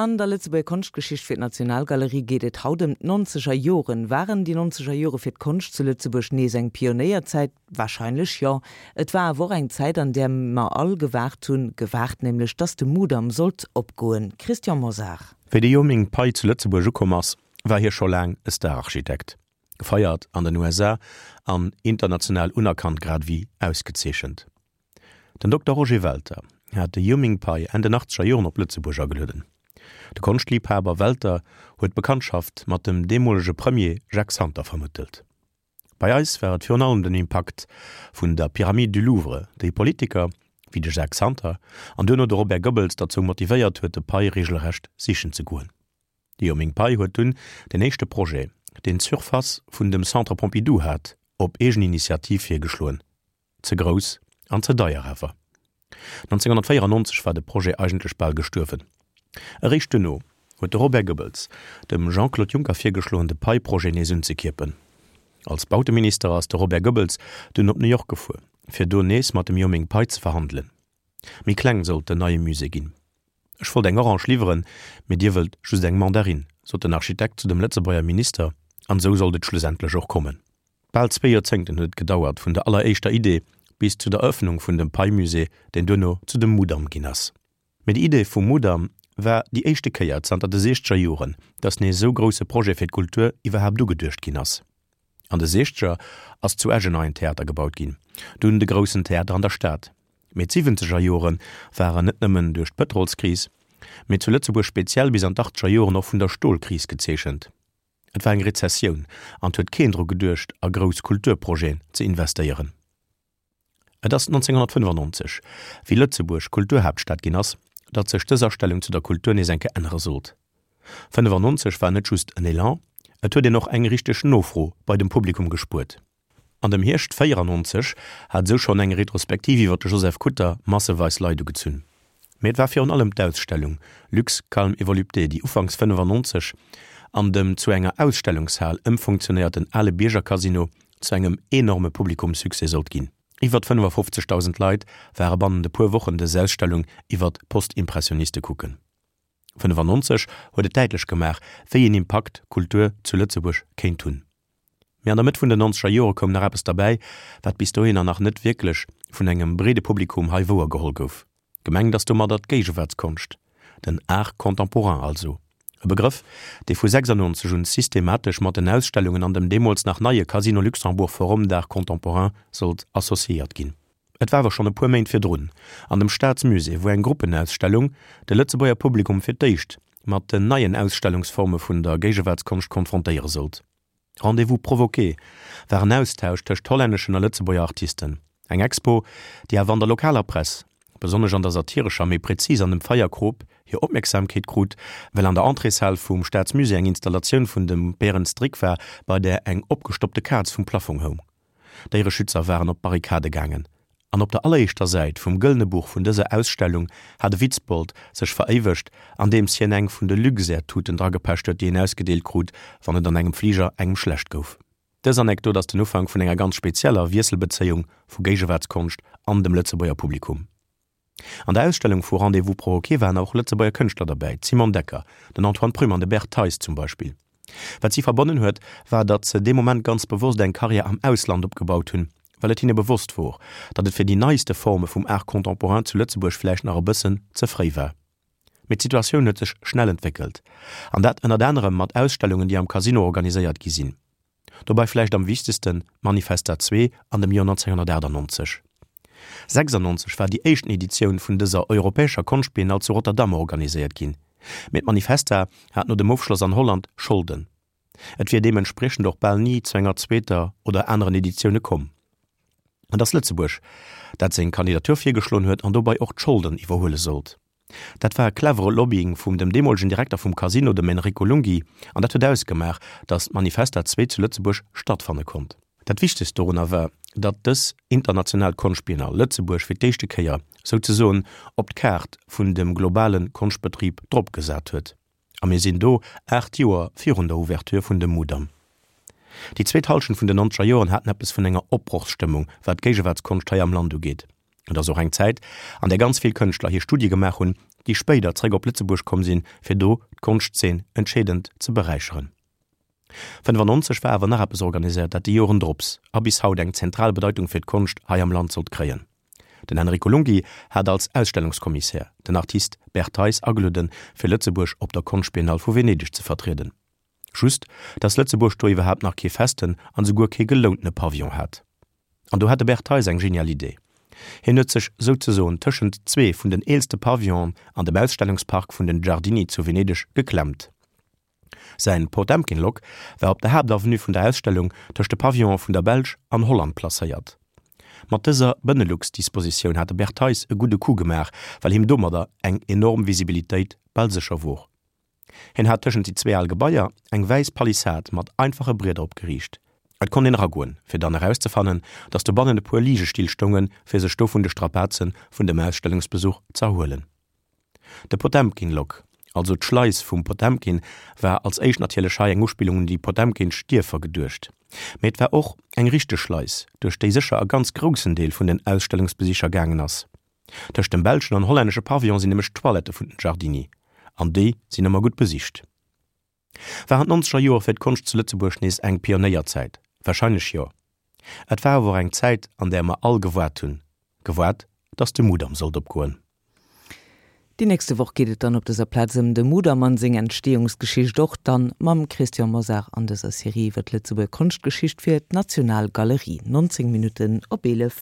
An der Lëtzebuerger Konschtgeschicht fir d'Nationalgalerie geet et haut ëm d'nonzeger Joren. Waren déi nonzeger Jore fir d'Konscht zu Lëtzebuerg nees eng Pionéierzäit? Warscheinlech jo. Et war awer och eng Zäit, an där mer all gewaart hunn, gewaart nämlech, datt de Mudam sollt opgoen. Christian Mosar. Wéi de Yo-Ming Pai zu Lëtzebuerg ukomm ass, war hie scho laang e Stararchitekt, gefeiert an den USA an international unerkannt grad ewéi ausgezeechent. Den Dokter Roger Welter hat de Yo-Ming Pai Enn den achtzeger Joren op Lëtzebuerg agelueden. De Konschtliibhaber Welter huet d'Bekanntschaft mat dem deemolege Premier Jacques Santer vermëttelt. Bei eis war et virun allem den Impakt vun der Pyramide du Louvre, déi Politiker wéi de Jacques Santer an duerno de Robert Goebbels derzou motivéiert huet, de Pai reegelrecht sichen ze goen. De Yo-Ming Pai huet dunn den éischte Projet, deen d'Surface vun dem Centre Pompidou hat, op eegen Initiativ virgeschloen. Ze grouss an ze deier awer. 1994 war de Projet eigentlech bal gestuerwen. Eréischt duerno huet de Robert Goebbels dem Jean-Claude Juncker virgeschloen, de Pei-Projet nees unzekierpen. Als Bauteminister ass de Robert Goebbels dunn op New York gefuer, fir do nees mat dem Yo-Ming Pai ze verhandelen. Méi kleng sollt den neie Musée ginn. Ech wollt eng Orange liwweren, mee dir wëllt just eng Mandarinn, sot den Architekt zu dem Lëtzebuerger Minister, an esou sollt et schlussendlech och kommen. Bal zwee Joerzéngten huet et gedauert vun der alleréischter Idee bis zu der Erëffnung vun dem Pei-Musée, deen duerno zu dem Mudam ginn ass. Mee déi Idee vum Mudam war déi éischte Kéier zanter de siechzeger Joren, datt nees esou grousse Projet fir d'Kultur iwwerhaapt ugeduecht ginn ass. An de siechzeger ass zu Esch en neien Theater gebaut ginn, dunn de groussen Theater an der Stad. Mee d'siwwenzeger Jore waren net nëmmen duerch d'Pëtrolskris, mee zu Lëtzebuerg speziell bis an d'achtzeger Joren och vun der Stolkris gezeechent. Et war eng Rezessioun an 't huet keen dru geduecht a grouss Kulturprojeten ze investéieren. Et ass 1995, wéi Lëtzebuerg Kulturhaaptstad ginn ass, datt sech dës Astellung zu der Kultur nees eng Kéier ännere sollt. 95 war net just en Elan, et huet een och eng richteg Nofro bei dem Publikum gespuert. An dem Hierscht 94 hat esou schonn eng Retrospektiv iwwer de Joseph Kutter masseweis Leit ugezunn. Mee et war virun allem d'Ausstellung Luxe, calme et volupté, déi ufanks 95 an dem zu enger Ausstellungshal ëmfunktionéierten ale Bierger-Casino zu engem enorme Publikumssuccès sollt ginn. Iwwer 55.000 Leit ware bannent e puer Wochen dës Ausstellung iwwer d'Postimpressioniste kucken. 95 huet et däitlech gemaach, wéi een Impakt Kultur zu Lëtzebuerg kéint hunn. Mee an der Mëtt vun den nonzeger Jore koum nach eppes derbäi, wat bis dohinner nach net wierklech vun engem breede Publikum hei wouer geholl gouf. Gemengt ass domadder d'Géigewaartskonscht, den Art contemporain also. E Begrëff, dee vu 96 un systematesch mat den Ausstellungen an dem deemools nach neie Casino Luxembourg Forum d'Art Contemporain sollt associéiert ginn. Et war awer schonn e puer Méint virdrun an dem Staatsmusée, wou eng Gruppenausstellung de Lëtzebuerger Publikum fir d'éischt mat den neien Ausstellungsforme vun der Géigewaartskonscht konfrontéiere sollt. Rendez-vous provoqué war en Austausch tëscht hollänneschen a Lëtzebuerger Artisten. Eng Expo, déi awer an der lokaler Press, besonnesch an der satirescher, méi prezis an dem Feierkrop, hir Opmierksamkeet krut, well an der Entréeshal vum Staatsmusée eng Installatioun vun dem Berend Strik war, bei där eng opgestoppte Kaz vum Plaffong houng. Déiereschützer waren op d'Barrikade gaangen an op der alleréischter Säit vum Gëllene Buch vun dëser Ausstellung hat e Witzbold sech veréiwegt, andeems hien eng vun de Luxair-Tuten dragepecht huet, déi een ausgedeelt krut, wann et an engem Fliger engem schlecht gouf. Dës Anekdot ass den Ufank vun enger ganz spezieller Wiesselbezéiung vu Géigewaartskonscht an dem Lëtzebuerger Publikum. An der Ausstellung vu Rendez-vous provoqué waren och Lëtzebuerger Kënschtler derbäi, d'Simone Decker, den Antoine Prüm an de Bert Theis zum Beispill. Wat si verbonnen huet, war datt se dee Moment ganz bewosst eng Karriär am Ausland opgebaut hunn, well et hinne bewosst wor, datt et fir déi neiste Forme vum Art contemporain zu Lëtzebuerg vläicht nach e bëssen ze fréi war. Mee d'Situatioun huet sech schnell entwéckelt, an dat ënnert anerem mat Ausstellungen, déi am Casino organiséiert gi sinn. Dobei vläicht am wichtegsten d'Manifesta 2 an dem Joer 1998. 96 war déi éischten Editioun vun dëser europäescher Konschtbiennale zu Rotterdam organiséiert ginn, mee d'Manifesta hat no dem Ofschloss an Holland Scholden. Et wier deementspriechend och bal ni zu enger zweeter oder aneren Editioune komm. Et ass Lëtzebuerg, dat seng Kandidatur virgeschloen huet an dobei och d'Scholden iwwerhuele sollt. Dat war e clevere Lobbying vum dem deemolegen Direkter vum Casino, dem Enrico Lunghi, an dat huet ausgemaach, datt d'Manifesta 2 zu Lëtzebuerg stattfanne konnt. Dat Wichtegst dorunner war, datt dës international Konschtbiennale Lëtzebuerg fir d'éischte Kéier souzesoen op d'Kaart vun dem globale Konschtbetrib dropgesat huet. A mir sinn do 8 Joer virun der Ouverture vun dem Mudam. Déi zweet Hallschent vun den nonzeger Joren haten eppes vun enger Opbrochsstëmmung, wat d'Géigewaartskonscht hei am Land ugeet. Et ass och eng Zäit, an där ganz vill Kënschtler hir Studie gemaach hunn, déi spéider zréck op Lëtzebuerg komm sinn, fir do d'Konschtzeen entscheedend ze beräicheren. 95 war awer nach eppes organiséiert, dat déi Joren drops a bis haut eng zentral Bedeitung fir d'Konscht hei am Land sollt kréien. Den Enrico Lunghi hat als Ausstellungskommissär den Artist Bert Theis agelueden, fir Lëtzebuerg op der Konschtbiennale vu Venedeg ze vertrieden. Just, dass Lëtzebuerg do iwwerhaapt nach kee festen an esouguer kee gelountene Pavillon hat. An do hat de Bert Theis eng genial Idee. Hien huet sech souzesoen tëschent zwee vun den eelste Pavillonen an dem Ausstellungspark vun den Giardini zu Venedeg geklemmt. Säin Potemkin-Lok war op der Haaptavenue vun der Ausstellung tëscht de Pavillonen vun der Belsch an Holland placéiert. Mat dëser Benelux-Dispositioun hat de Bert Theis e gudde Coup gemaach, well him domadder eng enorm Visibilitéit bal sécher wor. Hien hat tëschent déi zwee al Gebaier eng wäiss Palissad mat einfache Brieder opgeriicht. Et konnt een eragoen, fir dann erauszefannen, datt dobannen e puer Ligestill stoungen, fir sech do vun de Strapaze vun dem Ausstellungsbesuch z'erhuelen. De Potemkin-Lock, also d'Schleis vum Potemkin, war als éischt natierlech hei eng Uspillung un déi potemkinsch Dierfer geduecht. Mee et war och eng richteg Schleis, duerch déi sécher e ganz groussen Deel vun den Ausstellungsbesicher gaangen ass. Tëscht dem belschen an hollännesche Pavillon sinn nämlech d'Toilettë vun den Giardini, an déi sinn ëmmer gutt besicht. Waren d'nonzeger Joer fir d'Konscht zu Lëtzebuerg nees eng Pionéierzäit? Warscheinlech jo. Et war awer och eng Zäit, an där mer all gewaart hunn, gewaart, datt de Mudam sollt opgoen. Déi nächste Woch geet et dann op dëser Plaz ëm de Mudam an seng Entstehungsgeschicht, och dann mam Christian Mosar an dëser Serie iwwer d'Lëtzebuerger Konschtgeschicht fir d'Nationalgalerie. 19 Minutten op 11.